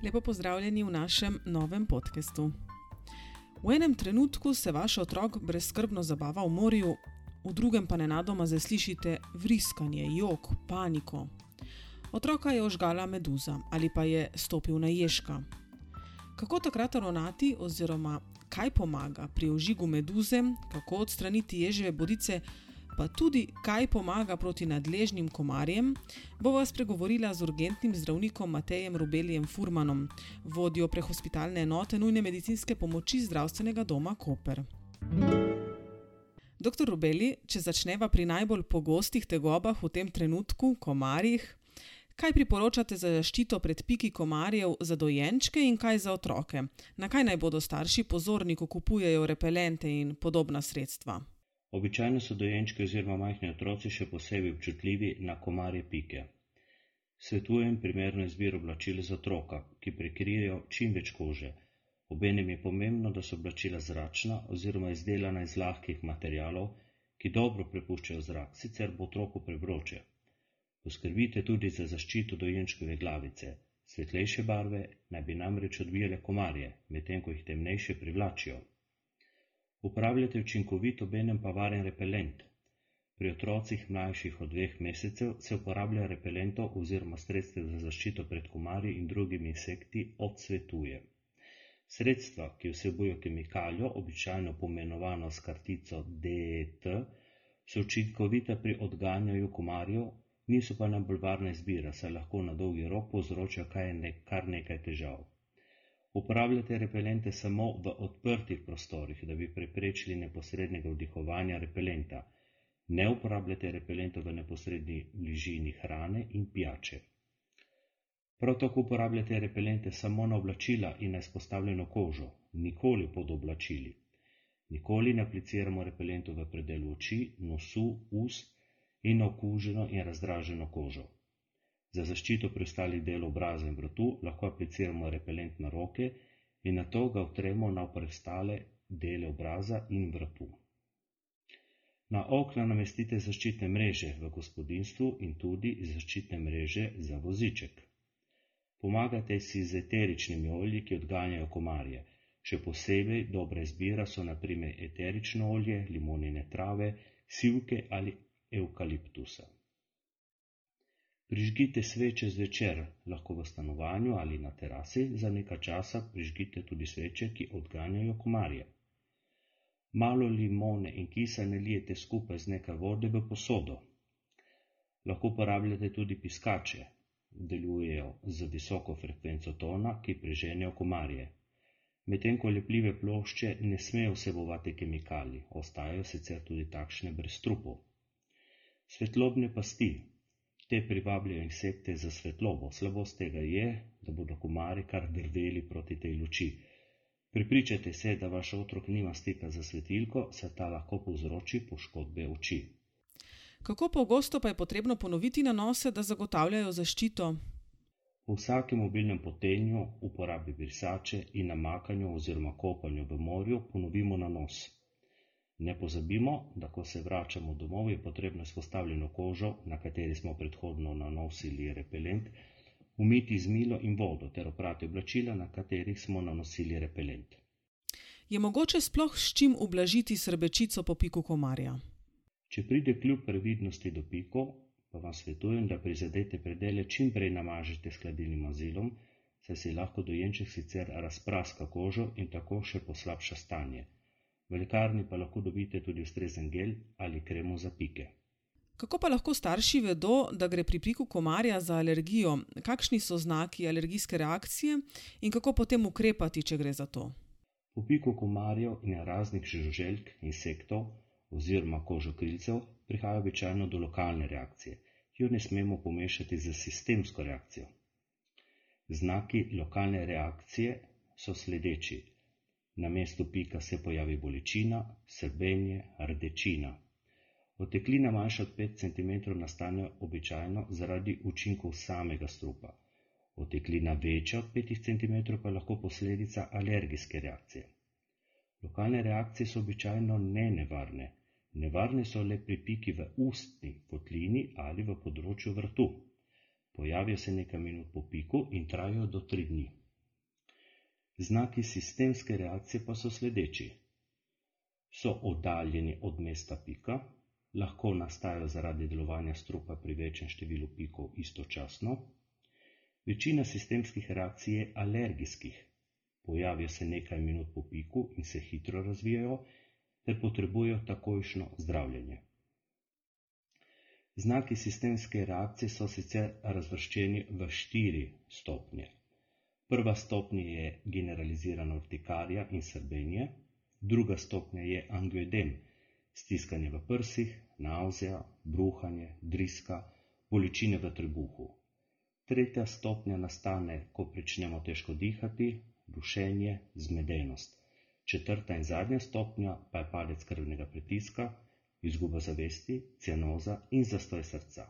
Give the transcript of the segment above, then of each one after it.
Lepo pozdravljeni v našem novem podcastu. V enem trenutku se vaš otrok brezskrbno zabava v morju, v drugem pa nenadoma zaslišite vriskanje, jok, paniko. Otroka je ožgala meduza ali pa je stopil na ježka. Kako takrat ravnati oziroma kaj pomaga pri ožigu meduze, kako odstraniti ježeve bodice, pa tudi kaj pomaga proti nadležnim komarjem, bova spregovorila z urgentnim zdravnikom Matejem Rubelijem Furmanom, vodjo prehospitalne enote nujne medicinske pomoči zdravstvenega doma Koper. Dr. Rubeli, če začneva pri najbolj pogostih tegobah v tem trenutku, komarjih, kaj priporočate za zaščito pred piki komarjev za dojenčke in kaj za otroke? Na kaj naj bodo starši pozorni, ko kupujejo repelente in podobna sredstva? Običajno so dojenčki oziroma majhni otroci še posebej občutljivi na komarje pike. Svetujem primerno izbiro oblačil za otroka, ki prekrijejo čim več kože. Obenem je pomembno, da so oblačila zračna oziroma izdelana iz lahkih materialov, ki dobro prepuščajo zrak, sicer bo otroku prevroče. Poskrbite tudi za zaščito dojenčkove glavice. Svetlejše barve naj bi namreč odbijale komarje, medtem ko jih temnejše privlačijo. Uporabljate učinkovit, obenem pa varen repelent. Pri otrocih mlajših od 2 mesecev se uporablja repelentov oziroma sredstev za zaščito pred komarji in drugimi insekti odsvetuje. Sredstva, ki vsebujejo kemikalijo, običajno poimenovano s kartico DET, so učinkovita pri odganjanju komarjev, niso pa najbolj varna izbira, saj lahko na dolgi rok povzročajo kar nekaj težav. Uporabljate repelente samo v odprtih prostorih, da bi preprečili neposrednega vdihovanja repelenta. Ne uporabljate repelentov v neposredni bližini hrane in pijače. Prav tako uporabljate repelente samo na oblačila in na izpostavljeno kožo, nikoli pod oblačili. Nikoli ne apliciramo repelentov v predelu oči, nosu, ust in na okuženo in razdraženo kožo. Za zaščito preostalih delov obraza in vratu lahko apliciramo repelent na roke in nato ga vtremo na preostale dele obraza in vratu. Na okna namestite zaščitne mreže v gospodinjstvu in tudi zaščitne mreže za voziček. Pomagajte si z eteričnimi olji, ki odganjajo komarje. Še posebej dobra izbira so na primer eterično olje, limonine trave, sivke ali evkaliptusa. Prižgite sveče zvečer, lahko v stanovanju ali na terasi, za nekaj časa prižgite tudi sveče, ki odganjajo komarje. Malo limone in kisa nalijete skupaj z nekaj vode v posodo. Lahko uporabljate tudi piskače, delujejo z visoko frekvenco tona, ki preženejo komarje. Medtem ko lepljive plošče ne smejo vsebovati kemikalij, ostajajo sicer tudi takšne brez trupov. Svetlobne pasti. Te privabljajo insekte za svetlobo. Slabost tega je, da bodo komarji kar drveli proti tej luči. Prepričajte se, da vaš otrok nima stika za svetilko, saj ta lahko povzroči poškodbe oči. Kako pogosto pa je potrebno ponoviti nanose, da zagotavljajo zaščito? Po vsakem mobilnem potenju, uporabi brisače in namakanju oziroma kopanju v morju ponovimo nanos. Ne pozabimo, da ko se vračamo domov, je potrebno izpostavljeno kožo, na kateri smo predhodno nanosili repelent, umiti z milo in vodo ter oprati oblačila, na katerih smo nanosili repelent. Je mogoče sploh s čim ublažiti srbečico po piku komarja? Če pride kljub previdnosti do pikov, pa vam svetujem, da prizadete predele čim prej namažete s hladilnim mazilom, saj si lahko dojenček sicer razpraska kožo in tako še poslabša stanje. V lekarni pa lahko dobite tudi ustrezen gel ali kremo za pike. Kako pa lahko starši vedo, da gre pri piku komarja za alergijo? Kakšni so znaki alergijske reakcije in kako potem ukrepati, če gre za to? Po piku komarjev in raznih žuželk, insektov oziroma kožokrilcev prihaja običajno do lokalne reakcije, ki jo ne smemo pomešati z sistemsko reakcijo. Znaki lokalne reakcije so sledeči. Na mestu pika se pojavi bolečina, srbenje, rdečina. Oteklina manjša od 5 cm nastane običajno zaradi učinkov samega strupa. Oteklina večja od 5 cm pa je lahko posledica alergijske reakcije. Lokalne reakcije so običajno nevarne. Nevarne so le pri piki v ustni votlini ali v področju vratu. Pojavijo se nekaj minut po piku in trajajo do 3 dni. Znaki sistemske reakcije pa so sledeči. So oddaljeni od mesta pika, lahko nastajajo zaradi delovanja strupa pri večjem številu pikov istočasno. Večina sistemskih reakcij je alergijskih, pojavijo se nekaj minut po piku in se hitro razvijajo, ter potrebujejo takojšnjo zdravljenje. Znaki sistemske reakcije so sicer razvrščeni v 4 stopnje. Prva stopnja je generalizirana urtikarija in srbenje, druga stopnja je angioedem, stiskanje v prsih, navzija, bruhanje, driska, bolečine v trebuhu. Tretja stopnja nastane, ko pričnemo težko dihati, dušenje, zmedenost. Četrta in zadnja stopnja pa je padec krvnega pritiska, izguba zavesti, cianoza in zastoj srca.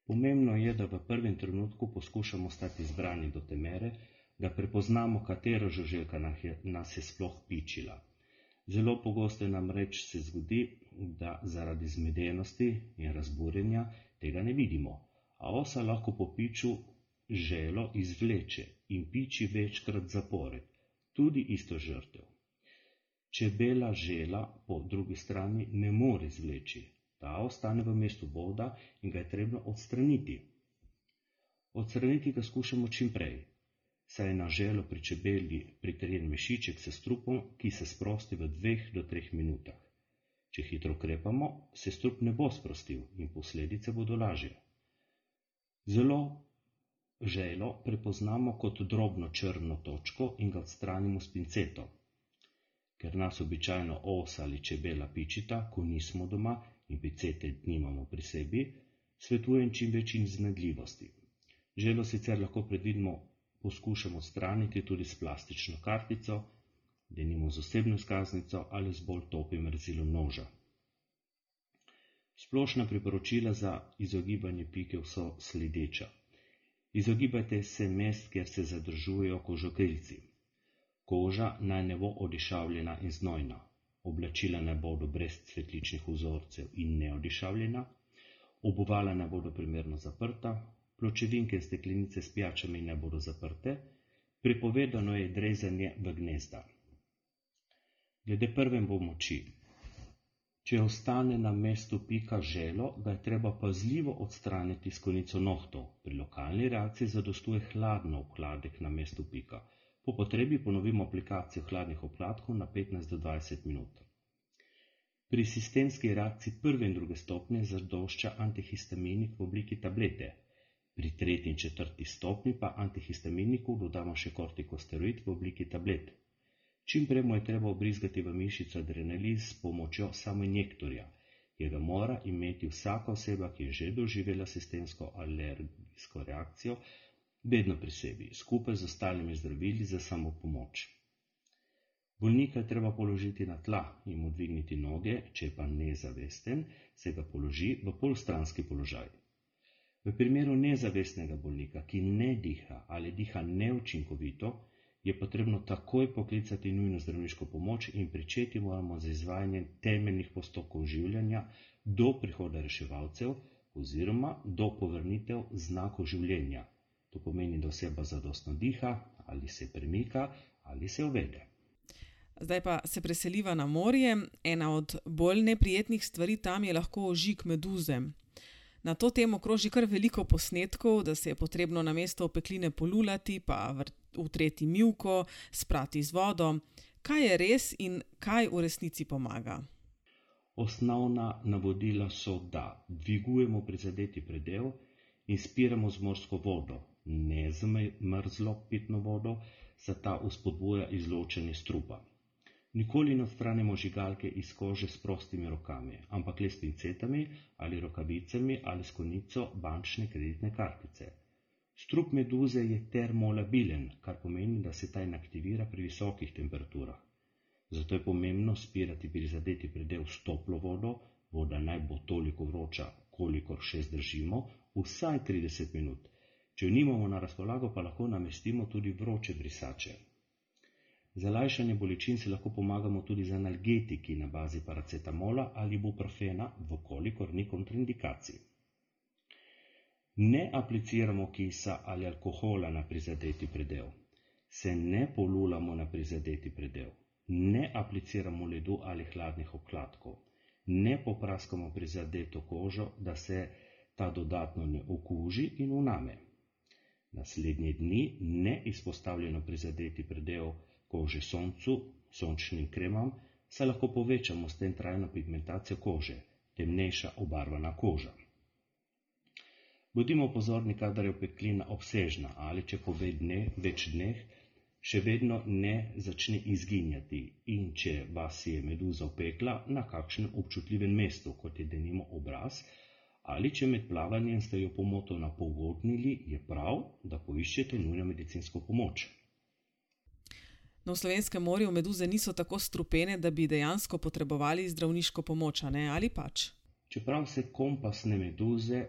Pomembno je, da v prvem trenutku poskušamo stati zbrani do te mere, da prepoznamo, katera žuželka nas je sploh pičila. Zelo pogosto namreč se zgodi, da zaradi zmedenosti in razburjenja tega ne vidimo, a osa lahko po piču želo izvleče in piči večkrat zapored, tudi isto žrtev. Čebela žela po drugi strani ne more izvleči, ta ostane v mestu boda in ga je treba odstraniti. Odstraniti ga skušamo čim prej, saj je na želo pri čebeli pritrjen mešiček s strupom, ki se sprosti v 2 do 3 minutah. Če hitro ukrepamo, se strup ne bo sprostil in posledice bodo lažje. Zelo želo prepoznamo kot drobno črno točko in ga odstranimo s pinceto. Ker nas običajno osa ali čebela pičita, ko nismo doma in pincete nimamo pri sebi, svetujem čim več iznajdljivosti. Želo sicer lahko predvidno poskušamo odstraniti tudi s plastično kartico, denimo z osebno izkaznico ali z bolj topim rezilom noža. Splošna priporočila za izogibanje pikev so sledeča. Izogibajte se mest, kjer se zadržujejo kožokrilci. Koža naj ne bo odišavljena in znojna, oblačila naj bodo brez cvetličnih vzorcev in neodišavljena, obuvala naj bodo primerno zaprta, pločevinke in steklenice s pijačami naj bodo zaprte, prepovedano je drezanje v gnezda. Glede prve pomoči. Če ostane na mestu pika želo, ga je treba pazljivo odstraniti s konico nohtov. Pri lokalni reakciji zadostuje hladno obkladek na mestu pika. Po potrebi ponovimo aplikacijo hladnih obkladkov na 15 do 20 minut. Pri sistemski reakciji prve in druge stopnje zadošča antihistaminik v obliki tablete. Pri 3. in 4. stopnji pa antihistaminiku dodamo še kortikosteroid v obliki tablet. Čim prej mu je treba obrizgati v mišico adrenalin s pomočjo samoinjektorja, ki ga mora imeti vsaka oseba, ki je že doživela sistemsko alergijsko reakcijo, vedno pri sebi, skupaj z ostalimi zdravili za samopomoč. Bolnika je treba položiti na tla in mu dvigniti noge, če pa nezavesten, se ga položi v polstranski položaj. V primeru nezavestnega bolnika, ki ne diha ali diha neučinkovito, je potrebno takoj poklicati nujno zdravniško pomoč in pričeti moramo z izvajanjem temeljnih postopkov življenja do prihoda reševalcev oziroma do povrnitev znakov življenja. To pomeni, da oseba zadostno diha, ali se premika, ali se uvede. Zdaj pa se preseliva na morje. Ena od bolj neprijetnih stvari tam je lahko ožig meduze. Na to temo kroži kar veliko posnetkov, da se je potrebno namesto opekline polulati, pa utreti mivko, sprati z vodo. Kaj je res in kaj v resnici pomaga? Osnovna navodila so, da dvigujemo prizadeti predel in spiramo z morsko vodo, ne z mrzlo pitno vodo, saj ta vzpodbuja izločanje strupa. Nikoli ne odstranimo žigalke iz kože s prostimi rokami, ampak le s pincetami ali rokavicami ali s konico bančne kreditne kartice. Strup meduze je termolabilen, kar pomeni, da se ta inaktivira pri visokih temperaturah. Zato je pomembno spirati prizadeti predel s toplo vodo, voda naj bo toliko vroča, kolikor še zdržimo, vsaj 30 minut. Če jo nimamo na razpolago, pa lahko namestimo tudi vroče brisače. Za lajšanje bolečin si lahko pomagamo tudi z analgetiki na bazi paracetamola ali ibuprofena, vkolikor ni kontraindikacij. Ne apliciramo kisa ali alkohola na prizadeti predel. se ne polulamo na prizadeti predel, ne apliciramo ledu ali hladnih obkladkov, ne popraskamo prizadeto kožo, da se ta dodatno ne okuži in vname. Naslednje dni ne izpostavljeno prizadeti predel kože soncu, sončnim kremam, saj lahko povečamo s tem trajno pigmentacijo kože, temnejša obarvana koža. Bodimo pozorni, kadar je opeklina obsežna ali če po več dneh še vedno ne začne izginjati in če vas je meduza opekla na kakšnem občutljivem mestu, kot je denimo obraz, ali če med plavanjem ste jo pomotoma pogodnili, je prav, da poiščete nujno medicinsko pomoč. No, v slovenskem morju meduze niso tako strupene, da bi dejansko potrebovali zdravniško pomoč, ali pač? Čeprav se kompasne meduze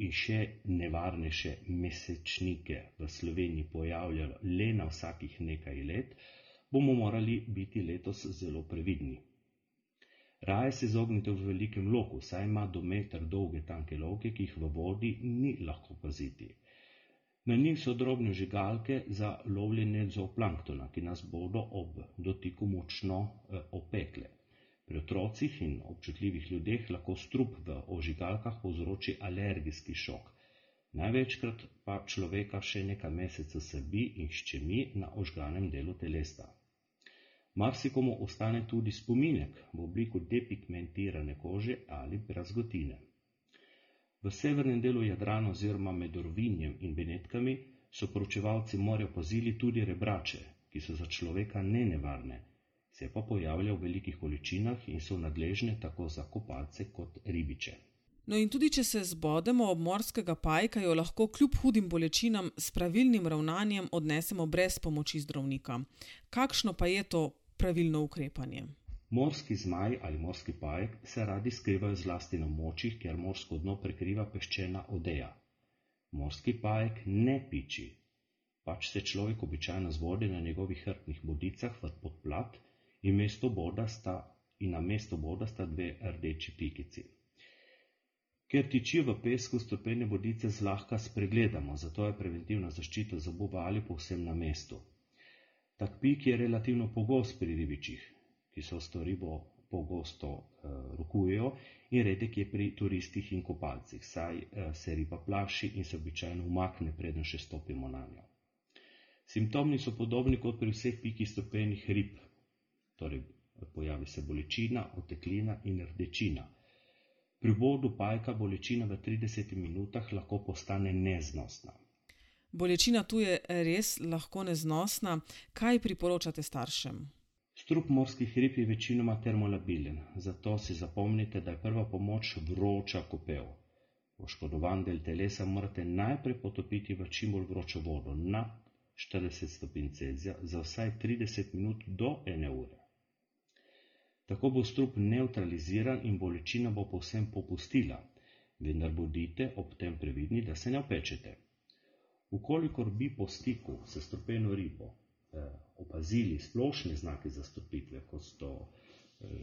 in še nevarnejše mesečnike v Sloveniji pojavljajo le na vsakih nekaj let, bomo morali biti letos zelo previdni. Raje se izognite v velikem loku, saj ima do meter dolge tanke lovke, ki jih v vodi ni lahko paziti. Na njih so drobne žigalke za lovljenje zooplanktona, ki nas bodo ob dotiku močno opekle. Pri otrocih in občutljivih ljudeh lahko strup v ožigalkah povzroči alergijski šok. Največkrat pa človeka še nekaj mesecev srbi in ščemi na ožganem delu telesa. Marsikomu ostane tudi spominek v obliku depigmentirane kože ali brazgotine. V severnem delu Jadrana oziroma med Rovinjem in Benetkami so proučevalci morja opazili tudi rebrače, ki so za človeka nenevarne, se pa pojavljajo v velikih količinah in so nadležne tako za kopalce kot ribiče. No in tudi če se zbodemo ob morskega pajka, jo lahko kljub hudim bolečinam s pravilnim ravnanjem odnesemo brez pomoči zdravnika. Kakšno pa je to pravilno ukrepanje? Morski zmaj ali morski pajek se radi skrivajo zlasti na območjih, kjer morsko dno prekriva peščena odeja. Morski pajek ne piči, pač se človek običajno zbode na njegovih hrbtnih bodicah v podplat in na mesto boda sta dve rdeči pikici. Ker tičijo v pesku, strupene bodice zlahka spregledamo, zato je preventivna zaščita zoba ali povsem na mestu. Tak pik je relativno pogost pri ribičih, ki se s to ribo pogosto rokujejo, in redek je pri turistih in kopalcih, saj se riba plaši in se običajno umakne, preden še stopimo na njo. Simptomi so podobni kot pri vseh pikih strupenih rib, torej pojavi se bolečina, oteklina in rdečina. Pri vbodu pajka bolečina v 30 minutah lahko postane neznosna. Bolečina tu je res lahko neznosna. Kaj priporočate staršem? Strup morskih rib je večinoma termolabilen, zato si zapomnite, da je prva pomoč vroča kopel. Poškodovan del telesa morate najprej potopiti v čim bolj vročo vodo na 40 stopinj Celzija za vsaj 30 minut do 1 ure. Tako bo strup nevtraliziran in bolečina bo povsem popustila, vendar bodite ob tem previdni, da se ne opečete. Ukolikor bi po stiku s strupeno ribo opazili splošne znake zastrupitve, kot so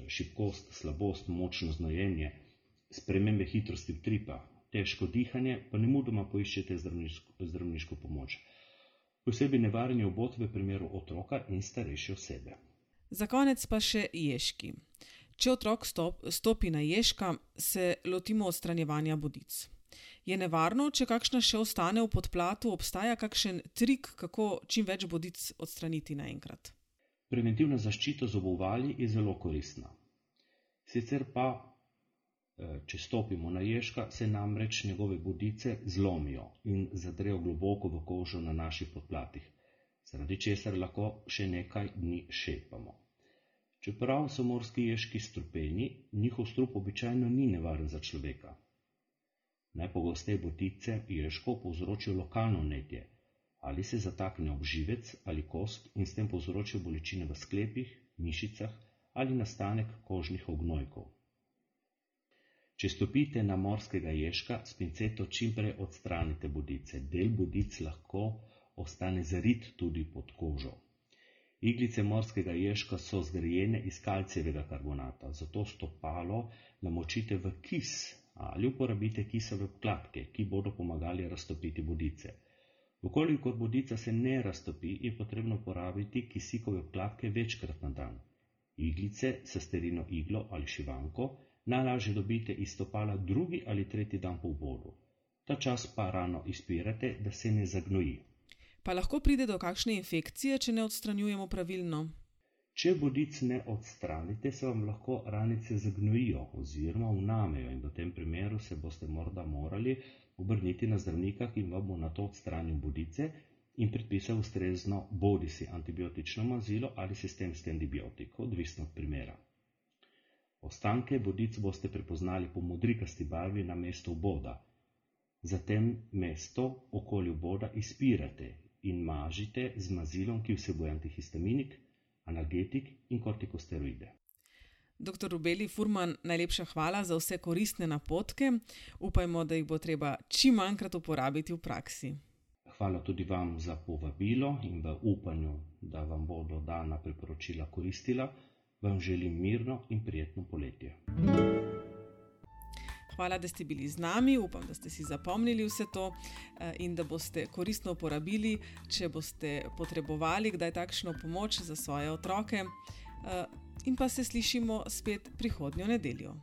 šibkost, slabost, močno znojenje, spremembe hitrosti utripa, težko dihanje, pa nemudoma poiščete zdravniško pomoč. Posebej nevaren je obod v primeru otroka in starejše osebe. Za konec pa še ježki. Če otrok stopi na ježka, se lotimo odstranjevanja bodic. Je nevarno, če kakšna še ostane v podplatu, obstaja kakšen trik, kako čim več bodic odstraniti naenkrat? Preventivna zaščita z obuvali je zelo koristna. Sicer pa, če stopimo na ježka, se namreč njegove bodice zlomijo in zadrejo globoko v kožo na naših podplatih, zaradi česar lahko še nekaj dni šepamo. Čeprav so morski ježki strupeni, njihov strup običajno ni nevaren za človeka. Najpogosteje bodice ježkov povzročijo lokalno vnetje, ali se zatakne ob živec ali kost in s tem povzročijo bolečine v sklepih, mišicah ali nastanek kožnih ognojkov. Če stopite na morskega ježka, s pinceto čimprej odstranite bodice. Del bodic lahko ostane zarit tudi pod kožo. Iglice morskega ježka so zgrajene iz kalcijevega karbonata, zato stopalo namočite v kis ali uporabite kisove obkladke, ki bodo pomagali raztopiti bodice. Vkolikor bodica se ne raztopi, je potrebno uporabiti kisikove obkladke večkrat na dan. Iglice, sesterino iglo ali šivanko najlažje dobite iz stopala drugi ali tretji dan po vbodu. Ta čas pa rano izpirate, da se ne zagnoji. Pa lahko pride do kakšne infekcije, če ne odstranjujemo pravilno? Če bodic ne odstranite, se vam lahko ranice zagnojijo oziroma vnamejo in v tem primeru se boste morda morali obrniti na zdravnika, ki vam bo nato odstranil bodice in predpisal ustrezno bodisi antibiotično mazilo ali sistemski antibiotik, odvisno od primera. Ostanke bodic boste prepoznali po modrikasti barvi na mestu vboda. Zatem mesto okoli vboda izpirate in mažite z mazilom, ki vsebuje antihistaminik, analgetik in kortikosteroide. Dr. Rubeli Furman, najlepša hvala za vse koristne napotke. Upajmo, da jih bo treba čim manjkrat uporabiti v praksi. Hvala tudi vam za povabilo in v upanju, da vam bodo dana priporočila koristila, vam želim mirno in prijetno poletje. Hvala, da ste bili z nami. Upam, da ste si zapomnili vse to in da boste koristno uporabili, če boste potrebovali kdaj takšno pomoč za svoje otroke. In pa se slišimo spet prihodnjo nedeljo.